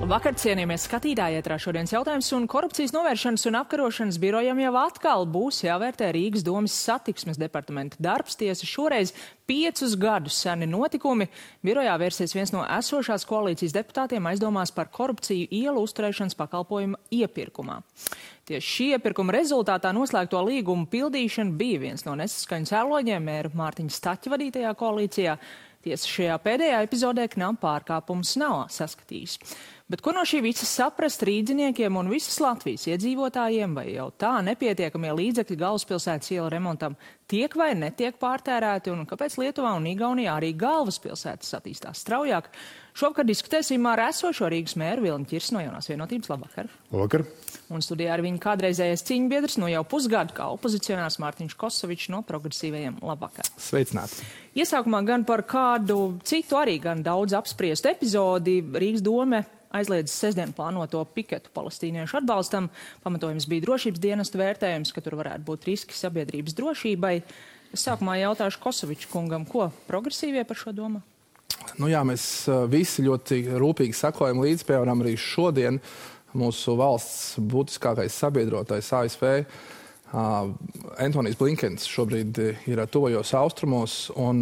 Labvakar, cienījamies skatītāji, ētrā šodienas jautājums, un korupcijas novēršanas un apkarošanas birojam jau atkal būs jāvērtē Rīgas domas satiksmes departamenta darbs. Tiesa šoreiz 5 gadus seni notikumi. Birojā vērsies viens no esošās koalīcijas deputātiem aizdomās par korupciju ielu uzturēšanas pakalpojuma iepirkumā. Tieši šī iepirkuma rezultātā noslēgto līgumu pildīšana bija viens no nesaskaņu cēloņiem mēra Mārtiņa Staķa vadītajā koalīcijā. Tiesa šajā pēdējā epizodē knap pārkāpums nav saskatījis. Bet ko no šī visa saprast rīdziniekiem un visas Latvijas iedzīvotājiem, vai jau tā nepietiekamie līdzekļi galvaspilsētas ielu remontam tiek vai netiek pārtērēti, un kāpēc Lietuvā un Igaunijā arī galvaspilsētas attīstās straujāk? Šovakar diskutēsim ar esošo Rīgas mēru Vilni Ķirsi no Jaunās vienotības. Labvakar! Labvakar! Un studijā ar viņu kādreizējais cīņbiedrs no jau pusgadu kā opozicionārs Mārtiņš Kosovičs no Progresīvajiem. Labvakar! Sveicināti! Iesākumā gan par kādu citu arī gan daudz apspriestu epizodi Rīgas dome aizliedz sestdien plānoto piketu palestīniešu atbalstam. Pamatojums bija drošības dienestu vērtējums, ka tur varētu būt riski sabiedrības drošībai. Es sākumā jautāšu Kosoviča kungam, ko progresīvie par šo domā? Nu jā, mēs visi ļoti rūpīgi sakojam līdz, piemēram, arī šodien mūsu valsts būtiskākais sabiedrotais ASV. Antonijs Blinkens šobrīd ir tuvajos austrumos, un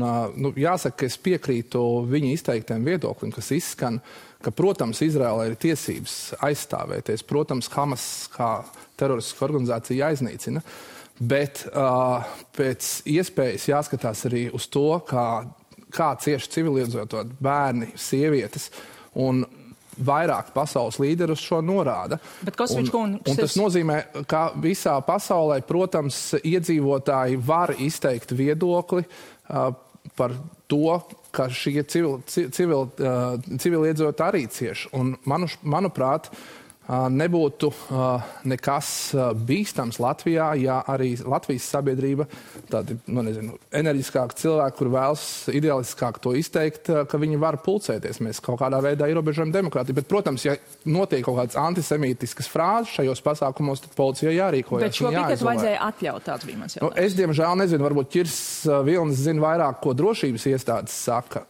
jāsaka, ka es piekrītu viņa izteiktiem viedoklim, kas izskan, ka, protams, Izraēlai ir tiesības aizstāvēties, protams, Hamas kā teroristiska organizācija jāiznīcina, bet pēc iespējas jāskatās arī uz to, kā cieši civiliedzīvotāji, bērni, sievietes, un vairāk pasaules līderi uz šo norāda. Un tas nozīmē, ka visā pasaulē, protams, iedzīvotāji var izteikt viedokli par to, ka šie civiliedzīvotāji arī cieši. Un, manuprāt, nebūtu nekas bīstams Latvijā, ja arī Latvijas sabiedrība, tādi, enerģiskāki cilvēki, kur vēlas idealistiskāk to izteikt, ka viņi var pulcēties. Mēs kaut kādā veidā ierobežojam demokrātiju. Bet, protams, ja notiek kaut kādas antisemītiskas frāzes šajos pasākumos, tad policijai jārīkojas. Bet šo piketu vajadzēja atļaut, tāds bija mans jautājums. Es, diemžēl, nezinu, varbūt Ķirs Vilnis zina vairāk, ko drošības iestādes saka,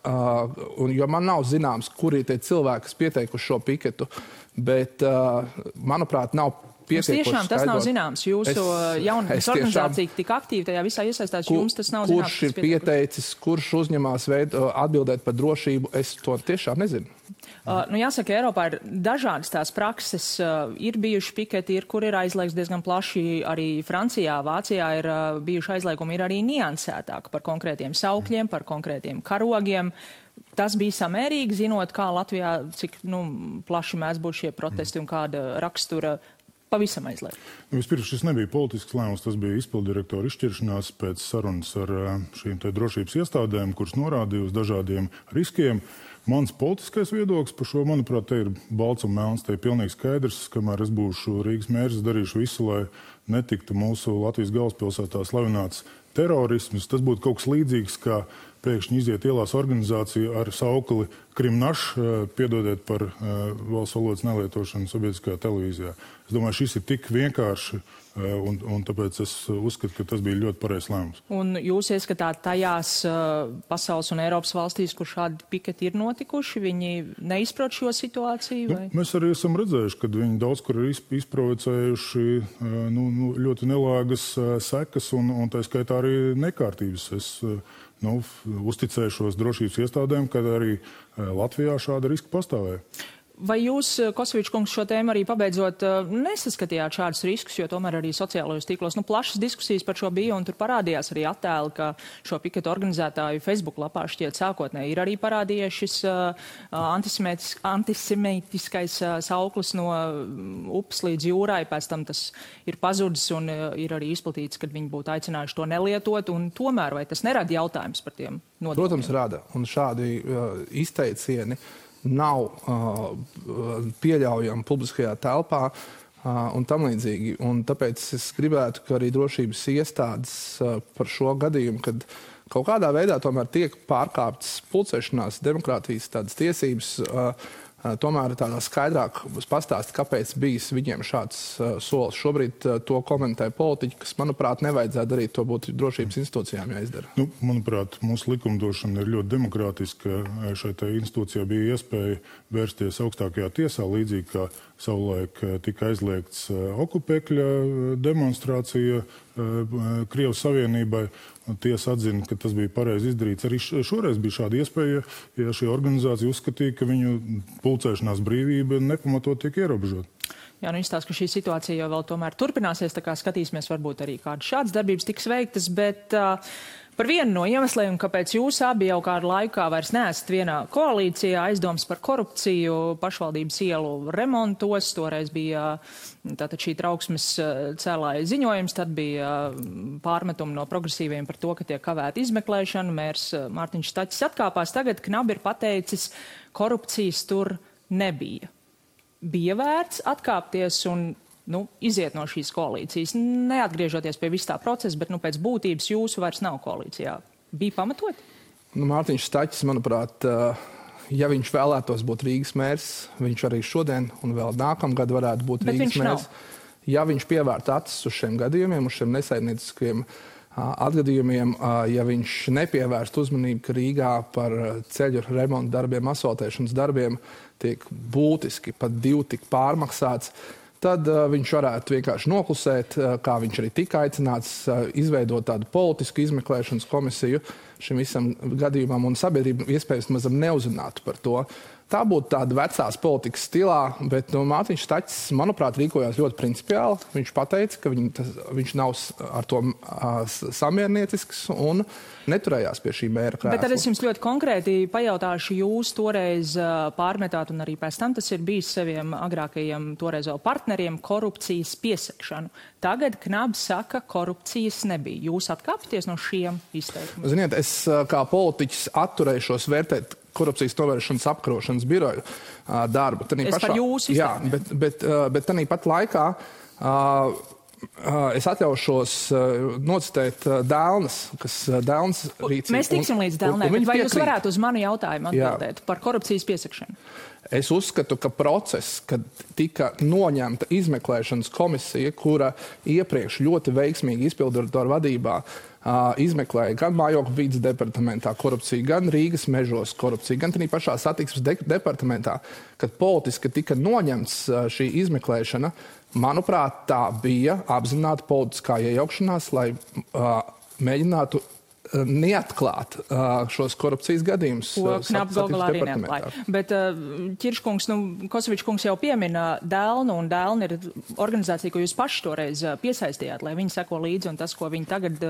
jo man nav zināms, kuri tie cilvēki, kas pieteikuši šo piketu. Bet, manuprāt, nav pietiekoši tiešām tas nav zināms. Jūsu jaunības organizācija tik aktīvi tajā visā iesaistās, jums tas nav zināms. Kurš ir pieteicis, kurš uzņemās atbildēt par drošību, es to tiešām nezinu. Jāsaka, Eiropā ir dažādas tās prakses, ir bijuši piketi, kur ir aizliegts diezgan plaši, arī Francijā, Vācijā ir bijuši aizliegumi, ir arī niansētāk par konkrētiem saukļiem, par konkrētiem karogiem. Tas bija samērīgi, zinot, kā Latvijā, cik plaši mēs būtu šie protesti un kāda rakstura pavisam aizliegt. Vispirms šis nebija politisks lēmums, tas bija izpildirektora izšķiršanās pēc sarunas ar šīm drošības iestādēm, kuras norādīja uz dažādiem riskiem. Mans politiskais viedoklis par šo, manuprāt, te ir balts un melns, te ir pilnīgi skaidrs, kamēr es būšu Rīgas mērs, darīšu visu, lai netiktu mūsu Latvijas galvaspilsētā slavināts terorisms. Tas būtu kaut kas līdzīgs, kā pēkšņi iziet ielās organizācija ar saukli Krimnaš, piedodiet par valsts valodas nelietošanu sabiedriskajā televīzijā. Es domāju, šis ir tik vienkārši, un tāpēc es uzskatu, ka tas bija ļoti pareizs lēmums. Un jūs ieskatāt tajās pasaules un Eiropas valstīs, kur šādi piketi ir notikuši, viņi neizprot šo situāciju? Vai? Mēs arī esam redzējuši, ka viņi daudz kur ir izprovocējuši ļoti nelāgas sekas, un tā skaitā arī nekārtības. Es uzticēšos drošības iestādēm, kad arī Latvijā šāda riska pastāvēja. Vai jūs, Kosovičs kungs, šo tēmu arī pabeidzot nesaskatījāt šādus riskus, jo tomēr arī sociālajos tīklos plašas diskusijas par šo bija, un tur parādījās arī attēli, ka šo piketu organizētāju Facebook lapā šķiet sākotnēji ir arī parādījies šis antisemītiskais sauklis no upes līdz jūrai, pēc tam tas ir pazudis un ir arī izplatīts, kad viņi būtu aicinājuši to nelietot, un tomēr vai tas nerada jautājums par tiem nodokļiem? Protams, rada, un šādi izteicieni nav pieļaujami publiskajā telpā un tam līdzīgi. Un tāpēc es gribētu, ka arī drošības iestādes par šo gadījumu, kad kaut kādā veidā tomēr tiek pārkāptas pulcēšanās demokrātijas tādas tiesības, tomēr tādā skaidrāk pastāst, kāpēc bijis viņiem šāds solis. Šobrīd to komentē politiķi, kas, manuprāt, nevajadzētu darīt, to būtu drošības institūcijām jāizdara. Manuprāt, mūsu likumdošana ir ļoti demokrātiska. Šai institūcijā bija iespēja vērsties augstākajā tiesā, līdzīgi kā savulaik tika aizliegts okupēkļa demonstrācija Krievijas Savienībai. Tiesa atzina, ka tas bija pareizi izdarīts. Arī šoreiz bija šāda iespēja, ja šī organizācija uzskatīja, ka viņu pulcēšanās brīvība nepamatot tiek ierobežot. Jā, izstāsta, ka šī situācija jau vēl tomēr turpināsies, tā kā skatīsimies, varbūt arī kādas šādas darbības tiks veiktas, bet par vienu no iemesliem, kāpēc jūs abi jau kādu laikā vairs neesat vienā koalīcijā, aizdomas par korupciju pašvaldības ielu remontos, toreiz bija tātad šī trauksmes cēlāja ziņojums, tad bija pārmetumi no progresīviem par to, ka tiek kavēta izmeklēšana, mērs Mārtiņš Staķis atkāpās, tagad Knabi ir pateicis, korupcijas tur nebija. Bija vērts atkāpties un iziet no šīs koalīcijas, neatgriežoties pie vis tā procesa, bet pēc būtības jūsu vairs nav koalīcijā. Bija pamatot? Mārtiņš Staķis, manuprāt, ja viņš vēlētos būt Rīgas mērs, viņš arī šodien un vēl nākamgad varētu būt Rīgas mērs. Ja viņš pievērta acis uz šiem gadījumiem, uz šiem nesaimnieciskiem atgadījumiem, ja viņš nepievērst uzmanību, ka Rīgā par ceļu remontu darbiem, asfaltēšanas darbiem tiek būtiski pat 2 tik pārmaksāts, tad viņš varētu vienkārši noklusēt, kā viņš arī tika aicināts, izveidot tādu politisku izmeklēšanas komisiju šim visam gadījumam, un sabiedrība iespējams mazam neuzzinātu par to. Tā būtu tāda vecās politikas stilā, bet Mārtiņš Staķis, manuprāt, rīkojās ļoti principiāli. Viņš pateica, ka viņš nav ar to samierniecisks un neturējās pie šī mēra krēsla. Bet tad es jums ļoti konkrēti pajautāšu, jūs toreiz pārmetāt, un arī pēc tam tas ir bijis saviem agrākajiem toreiz vēl partneriem, korupcijas piesakšanu. Tagad Knabs saka, korupcijas nebija. Jūs atkāpties no šiem izteikumiem? Ziniet, es kā politiķis atturēšos vērtēt korupcijas novēršanas apkarošanas biroju darbu. Par jūsu izteikumiem. Jā, bet tanī pat laikā es atļaušos nocitēt Dēlnes, kas Dēlnes rīcība. Mēs tiksim līdz Dēlnē, bet vai jūs varētu uz manu jautājumu atbildēt par korupcijas piesakšanu? Es uzskatu, ka process, kad tika noņemta izmeklēšanas komisija, kura iepriekš ļoti veiksmīgi izpilddirektora vadībā izmeklēja gan mājokļu vides departamentā korupciju, gan Rīgas mežos korupciju, gan arī pašā satiksmes departamentā, kad politiski tika noņemts šī izmeklēšana, manuprāt, tā bija apzināta politiskā iejaukšanās, lai mēģinātu neatklāt šos korupcijas gadījumus. Ko Knabs galā arī neatklāja. Bet Ķirškungs, Kosovičs kungs jau piemina Dēlnu, un Dēlna ir organizācija, ko jūs paši toreiz piesaistījāt, lai viņi seko līdzi, un tas, ko viņi tagad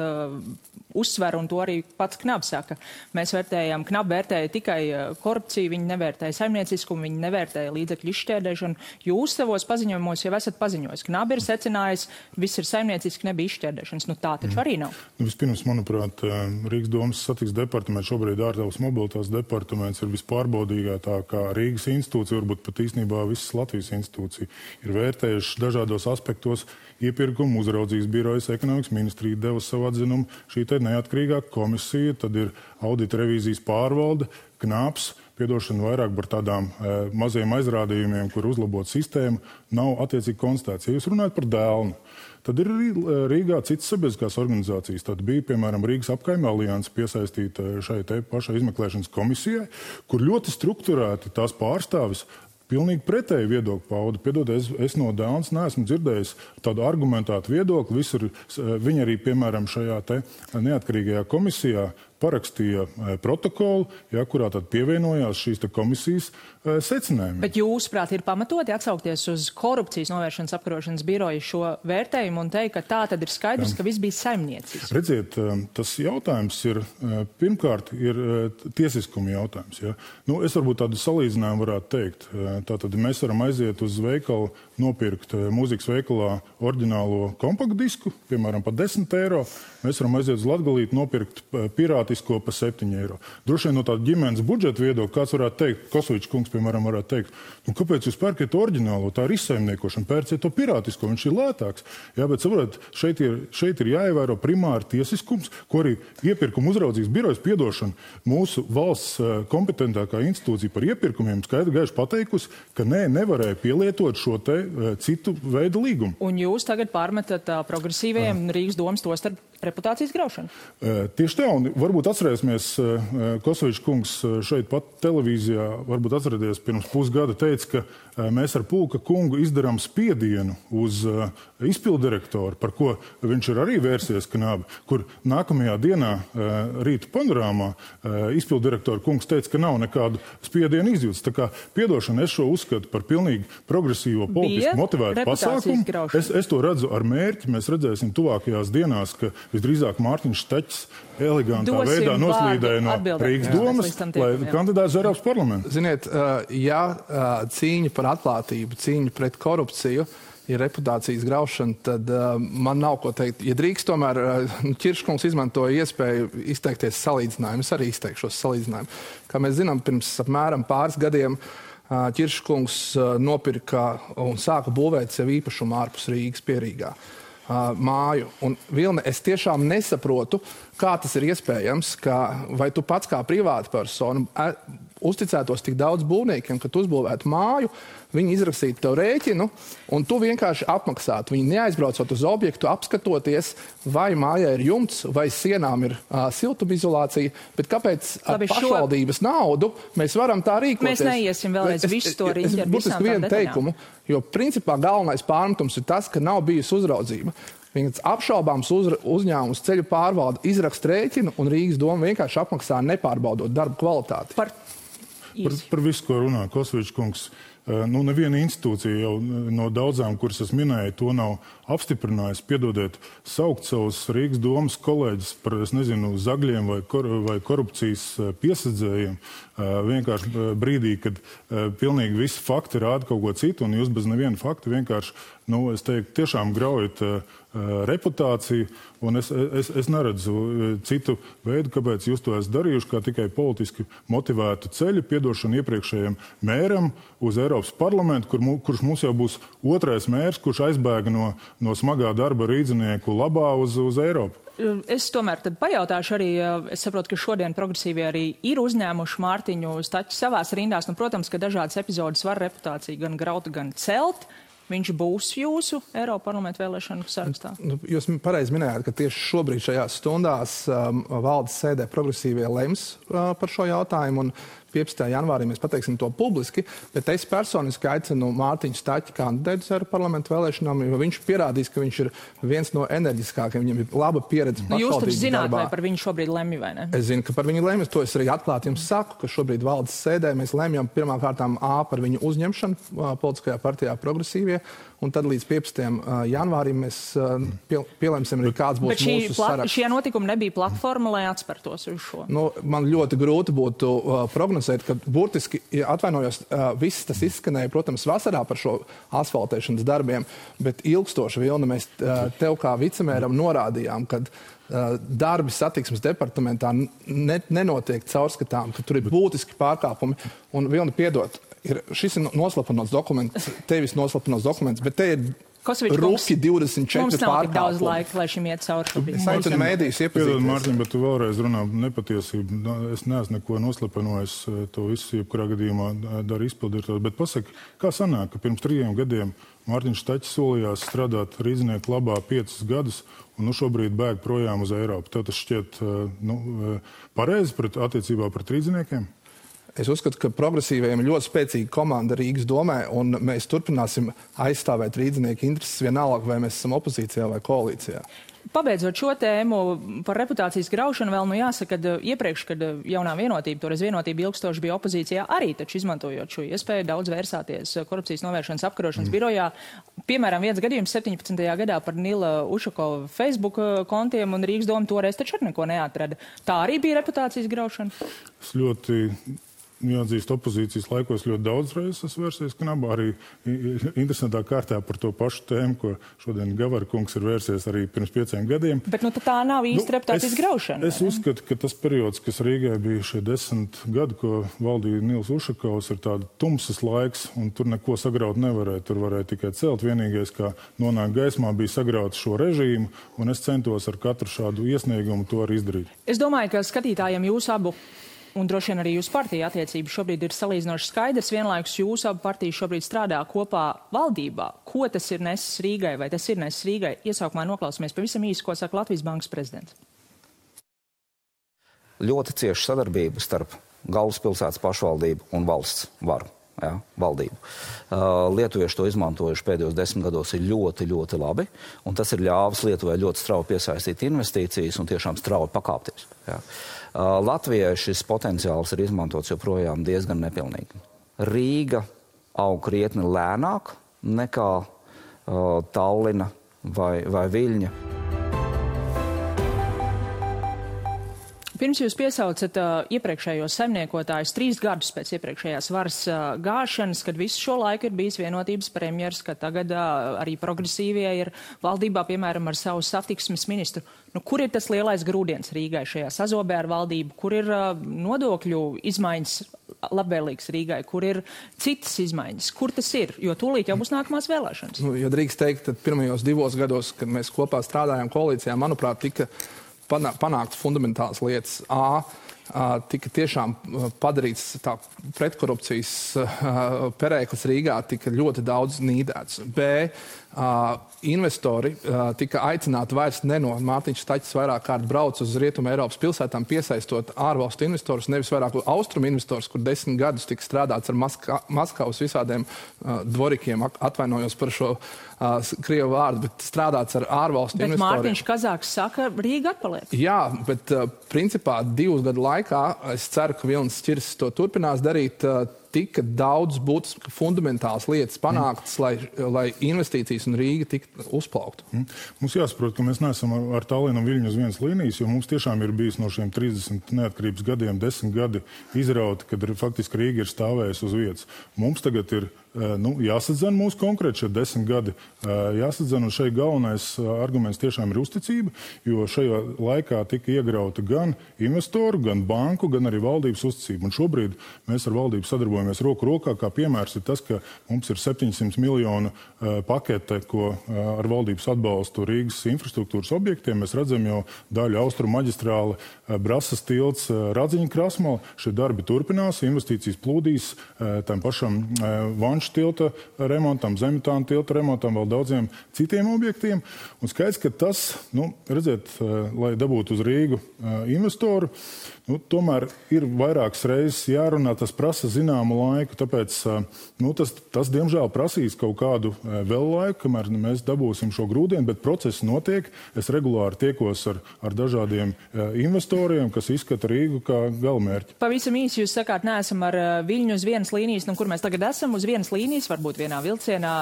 uzsver, un to arī pats Knabs saka. Mēs vērtējam, Knab vērtēja tikai korupciju, viņi nevērtēja saimnieciskumu, viņi nevērtēja līdzekļu izšķērdēšanu. Jūs savos paziņojumos jau esat paziņojis. Knab ir secinājis, viss ir saimnieciski, nebija izšķērdēšanas. Tā taču arī nav. Vispirms, manuprāt, Rīgas domas satiksmes departaments, šobrīd ārtelpas mobilitātes departaments ir vispārbaudīgākā Rīgas institūcija, varbūt pat īstenībā visas Latvijas institūcija. Ir vērtējuši dažādos aspektos iepirkumu uzraudzības birojas, ekonomikas ministrija deva savu atzinumu, šī te neatkarīgā komisija, tad ir audita revīzijas pārvalde, Knāps, piedošana vairāk par tādām maziem aizrādījumiem, kur uzlabot sistēmu, nav attiecīgi konstatēts. Ja jūs runājat par Dēlnu, tad ir Rīgā citas sabiedriskās organizācijas. Tad bija, piemēram, Rīgas apkaime alianse piesaistīta šai te pašai izmeklēšanas komisijai, kur ļoti strukturēti tās pārstāvis pilnīgi pretēju viedokli pauda. Piedodiet, es no Dēlnes neesmu dzirdējis tādu argumentētu viedokli. Viņi arī, piemēram, šajā te neatkarīgajā komisijā parakstīja protokolu, kurā tad pievienojās šīs komisijas secinājumi. Bet jūsuprāt ir pamatoti atsaukties uz korupcijas novēršanas apkarošanas biroju šo vērtējumu un teikt, ka tā tad ir skaidrs, ka viss bija saimniecisks? Redziet, tas jautājums ir, pirmkārt, ir tiesiskuma jautājums. Ja? Es varbūt tādu salīdzinājumu varētu teikt. Tātad mēs varam aiziet uz veikalu, nopirkt mūzikas veikalā oriģinālo kompaktdisku, piemēram, par 10 eiro. Mēs varam aiziet uz Latgalīti, nopirkt pirātu pirātisko pa 7 eiro. Droši vien no tāda ģimenes budžeta viedokļa kāds varētu teikt, Kosovičs kungs, piemēram, varētu teikt, kāpēc jūs pērkat oriģinālo, tā ir izsaimniekošana, pērciet to pirātisko, viņš ir lētāks. Jā, bet saprotat, šeit ir jāievēro primāri tiesiskums, ko arī iepirkuma uzraudzības birojas piedošana mūsu valsts kompetentākā institūcija par iepirkumiem skaidri gaiši pateikusi, ka nevarēja pielietot šo te citu veidu līgumu. Un jūs tagad pārmetat progresīvajiem Rīgas domas to starp reputācijas graušanu? Tieši tā, un varbūt atcerēsimies, Kosovičs kungs šeit pat televīzijā, varbūt atcerēties pirms pusgada teica, ka mēs ar Pulka kungu izdarām spiedienu uz izpildirektoru, par ko viņš ir arī vērsies Knābi, kur nākamajā dienā rīta panorāmā izpildirektora kungs teica, ka nav nekādu spiedienu izjūtas. Tā kā piedošana, es šo uzskatu par pilnīgi progresīvo politiski motivētu pasākumu. Es to redzu ar mērķi. Mēs redzēsim tuvākajās dienās, ka visdrīzāk Mārtiņš Staķis elegantā veidā noslīdēja no Rīgas domas, lai kandidēts Eiropas parlamentu. Ziniet, ja cīņa par atklātību, cīņa pret korupciju ir reputācijas graušana, tad man nav ko teikt. Ja drīkst, tomēr Ķirškungs izmantoja iespēju izteikties salīdzinājumu. Es arī izteikšos salīdzinājumu. Kā mēs zinām, pirms apmēram pāris gadiem Ķirškungs nopirka un sāka būvēt sev īpašumu ārpus Rīgas Pierīgā māju. Un, Vilne, es tiešām nesaprotu, kā tas ir iespējams, vai tu pats kā privāta persona uzticētos tik daudz būvniekiem, ka tu uzbūvētu māju, viņi izrakstītu tev rēķinu, un tu vienkārši apmaksātu. Viņi neaizbraucot uz objektu, apskatoties, vai mājā ir jumts, vai sienām ir siltumizolācija, bet kāpēc ar pašvaldības naudu mēs varam tā rīkoties? Mēs neiesim vēlreiz visu to riņķi ar visām tām teikumu, jo principā galvenais pārmetums ir tas, ka nav bijusi uzraudzība. Viņas apšaubāms uzņēmums ceļu pārvalda izrakst rēķinu, un Rīgas doma vienkārši apmaksā nepārbaudot darba kvalitāti. Par visu, ko runā Kosovičs kungs. Neviena institūcija jau no daudzām, kuras es minēju, to nav apstiprinājusi. Piedodiet, saukt savus Rīgas domas kolēģis par, es nezinu, zagļiem vai korupcijas piesadzējiem, vienkārši brīdī, kad pilnīgi visi fakti rāda kaut ko citu, un jūs bez neviena fakta vienkārši, es teiktu, tiešām graujat reputāciju, un es neredzu citu veidu, kāpēc jūs to esat darījuši, kā tikai politiski motivētu ceļu, piedošanu iepriekšējiem mēram uz Eiropas parlamentu, kurš mums jau būs otrais mērs, kurš aizbēga no smagā darba rīdzinieku labā uz Eiropu. Es tomēr tad pajautāšu arī, es saprotu, ka šodien progresīvie arī ir uzņēmuši Mārtiņu Staķi savās rindās. Protams, ka dažādas epizodes var reputāciju gan graut, gan celt. Viņš būs jūsu Eiropa parlamenta vēlēšanu sarakstā? Jūs pareizi minējāt, ka tieši šobrīd šajās stundās valdes sēdē progresīvie lems par šo jautājumu, un 15. janvārī mēs pateiksim to publiski, bet es personiski aicinu Mārtiņu Staķi kandidēt uz Eiropa parlamenta vēlēšanām, jo viņš pierādīs, ka viņš ir viens no enerģiskākiem, viņam ir laba pieredze pašvaldības darbā. Jūs taču zināt, vai par viņu šobrīd lemj, vai ne? Es zinu, ka par viņu lemj, to es arī atklāti jums saku, ka šobrīd valdes sēdē mēs lemjam pirmkārtām par viņu uzņemšanu politiskajā partijā progresīvie, un tad līdz 15. janvārim mēs pielemsim arī kāds būs mūsu saraksts. Šie notikumi nebija platforma, lai atspertos uz šo? Man ļoti grūti būtu prognozēt, ka burtiski, atvainojos, viss tas izskanēja, protams, vasarā par šo asfaltēšanas darbiem, bet ilgstoši, Vilna, mēs tev kā vicemēram norādījām, kad darbi satiksmes departamentā nenotiek caurskatām, ka tur ir būtiski pārkāpumi. Un, Vilna, piedod, šis ir noslapanots dokuments, tevis noslapanots dokuments, bet te ir ruki 24 pārkāpumi. Mums nav tik daudz laika, lai šim iet cauri. Es aicinu mēdījus iepazīties. Piedod, Mārtiņ, bet tu vēlreiz runā nepatiesību. Es neesmu neko noslapanojis, to visu jebkurā gadījumā dara izpildīt. Bet pasaki, kā sanāk, ka pirms 3 gadiem Mārtiņš Staķis solījās strādāt rīdzinieku labā 5 gadus, un šobrīd bēg projām uz Eiropu. Tev tas šķiet pareizi attiecībā pret rīdziniekiem? Es uzskatu, ka progresīvajiem ir ļoti spēcīga komanda Rīgas domē, un mēs turpināsim aizstāvēt rīdzinieku intereses vienalga, vai mēs esam opozīcijā vai koalīcijā. Pabeidzot šo tēmu par reputācijas graušanu, vēl jāsaka, ka iepriekš, kad jaunā vienotība, toreiz vienotība ilgstoši bija opozīcijā, arī taču izmantojot šo iespēju daudz vērsāties korupcijas novēršanas apkarošanas birojā. Piemēram, viens gadījums 17. gadā par Nila Ušakova Facebook kontiem, un Rīgas doma toreiz taču arī neko neatrada. Tā arī bija reputācijas graušana? Es ļoti jāatzīst, opozīcijas laikos ļoti daudz reizes esmu vērsies knabā, arī interesantā kārtā par to pašu tēmu, ko šodien Gavara kungs ir vērsies arī pirms 5 gadiem. Bet tā nav īsti reputācijas graušana. Es uzskatu, ka tas periods, kas Rīgai bija šie 10 gadi, ko valdīja Nils Ušakovs, ir tāda tumsas laiks, un tur neko sagraut nevarēja. Tur varēja tikai celt. Vienīgais, kā nonākt gaismā, bija sagraut šo režīmu, un es centos ar katru šādu iesniegumu to arī izdarīt. Es domāju, ka skatītājiem jūs abu un droši vien arī jūsu partija attiecības šobrīd ir salīdzinoši skaidrs. Vienlaikus jūsu abu partijas šobrīd strādā kopā valdībā. Ko tas ir nesis Rīgai, vai tas ir nesis Rīgai? Iesaukumā noklausāmies pavisam īsi, ko saka Latvijas Bankas prezidents. Ļoti cieša sadarbība starp galvaspilsētas pašvaldību un valsts varu. Valdību. Lietuvieši to izmantojuši pēdējos 10 gados ir ļoti, ļoti labi, un tas ir ļāvis Lietuvai ļoti strauji piesaistīt investīcijas un tiešām strauji pakāpties. Latvijai šis potenciāls ir izmantots joprojām diezgan nepilnīgi. Rīga aug krietni lēnāk nekā Tallina vai Viļņa. Pirms jūs piesaucat iepriekšējos saimniekotājus 3 gadus pēc iepriekšējās varas gāšanas, kad visu šo laiku ir bijis vienotības premjers, ka tagad arī progresīvie ir valdībā, piemēram, ar savu satiksmes ministru. Kur ir tas lielais grūdienis Rīgai šajā sazobē ar valdību? Kur ir nodokļu izmaiņas labvēlīgas Rīgai? Kur ir citas izmaiņas? Kur tas ir? Jo tūlīt jau būs nākamās vēlēšanas. Ja drīkst teikt, tad pirmajos 2 gados, kad mēs kopā strādājām koalīcijā, manuprāt, tika panākt fundamentālas lietas. Tika tiešām padarīts tā pretkorupcijas perēklis Rīgā, tika ļoti daudz nīdēts. Investori tika aicināti vairs no Mārtiņš Staķis vairāk kārt brauc uz Rietumu Eiropas pilsētām, piesaistot ārvalstu investorus, nevis vairāk austrumu investors, kur 10 gadus tika strādāts ar Maskavas visādiem dvorikiem, atvainojos par šo krievu vārdu, bet strādāts ar ārvalstu investoriem. Bet Mārtiņš Kazāks saka, Rīga atpaliek. Jā, bet principā 2 gadu laikā, es ceru, ka Vilnis Čirs to turpinās darīt, tika daudz būtisks fundamentāls lietas panāktas, lai investīcijas un Rīga tiktu uzplauktu. Mums jāsaprot, ka mēs neesam ar Tallinu un Viļņu uz vienas līnijas, jo mums tiešām ir bijis no šiem 30 neatkarības gadiem 10 gadi izrauti, kad faktiski Rīga ir stāvējusi uz vietas. Mums tagad ir jāsadzen mūsu konkrēti šie 10 gadi. Jāsadzen, un šeit galvenais arguments tiešām ir uzticība, jo šajā laikā tika iegrauta gan investoru, gan banku, gan arī valdības uzticība. Un šobrīd mēs ar valdību sadarbojamies roku rokā, kā piemērs ir tas, ka mums ir 700 miljonu pakete, ko ar valdības atbalstu Rīgas infrastruktūras objektiem. Mēs redzam jau daļu austrumu maģistrāli, Brasas tilts, Radziņa krasmala. Šie darbi turpinās, investīcijas plūdīs tam pašam Vanšu tilta remontam, Zemļtāna tilta remontam, vēl daudziem citiem objektiem. Un skaidrs, ka tas, redziet, lai dabūtu uz Rīgu investoru, tomēr ir vairākas reizes jārunā, tas prasa zināmu laiku, tāpēc tas diemžēl prasīs kaut kādu vēl laiku, kamēr mēs dabūsim šo grūdienu, bet process notiek. Es regulāri tiekos ar dažādiem investoriem, kas izskata Rīgu kā galamērķi. Pavisam īsi jūs sakāt, neesam ar Viļņu uz vienas līnijas, kur mēs tagad esam uz vienas līnijas, varbūt vienā vilcienā,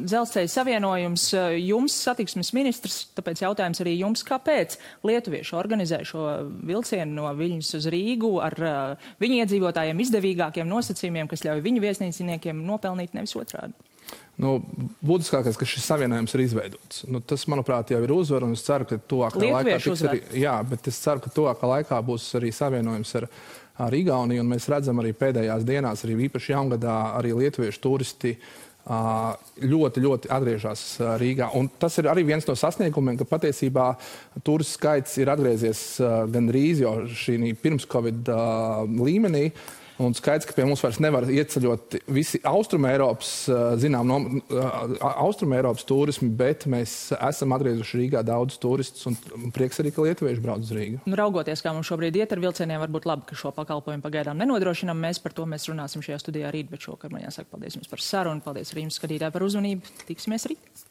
dzelzceļa savienojums, jums satiksmes ministrs, tāpēc jautājums arī jums, kāpēc lietuvieši organizē šo vilcienu no Viļņas uz Rīgu ar viņu iedzīvotājiem izdevīgākiem nosacījumiem, kas ļauj viņu viesnīciniekiem nopelnīt, nevis otrādi. Būtiskākais, ka šis savienojums ir izveidots. Tas, manuprāt, jau ir uzvar, un es ceru, ka tuvākā laikā būs arī savienojums ar Igauniju, un mēs redzam arī pēdējās dienās, arī īpaši jaungadā, arī lietuviešu turisti ļoti, ļoti atgriežas Rīgā. Un tas ir arī viens no sasniegumiem, ka patiesībā turistu skaits ir atgriezies gandrīz jau šī pirms Covid līmenī. Un skaidrs, ka pie mums vairs nevar ieceļot visi Austrumēropas, Austrumēropas turismi, bet mēs esam atgriezuši Rīgā daudz turistus un prieks arī, ka lietuvieši brauc uz Rīgu. Raugoties, kā mums šobrīd iet ar vilcieniem, varbūt labi, ka šo pakalpojumu pagaidām nenodrošinām. Par to mēs runāsim šajā studijā rīt, bet šokar man jāsaka paldies jums par sarunu, paldies arī jums skatītāji par uzmanību. Tiksimies rīt.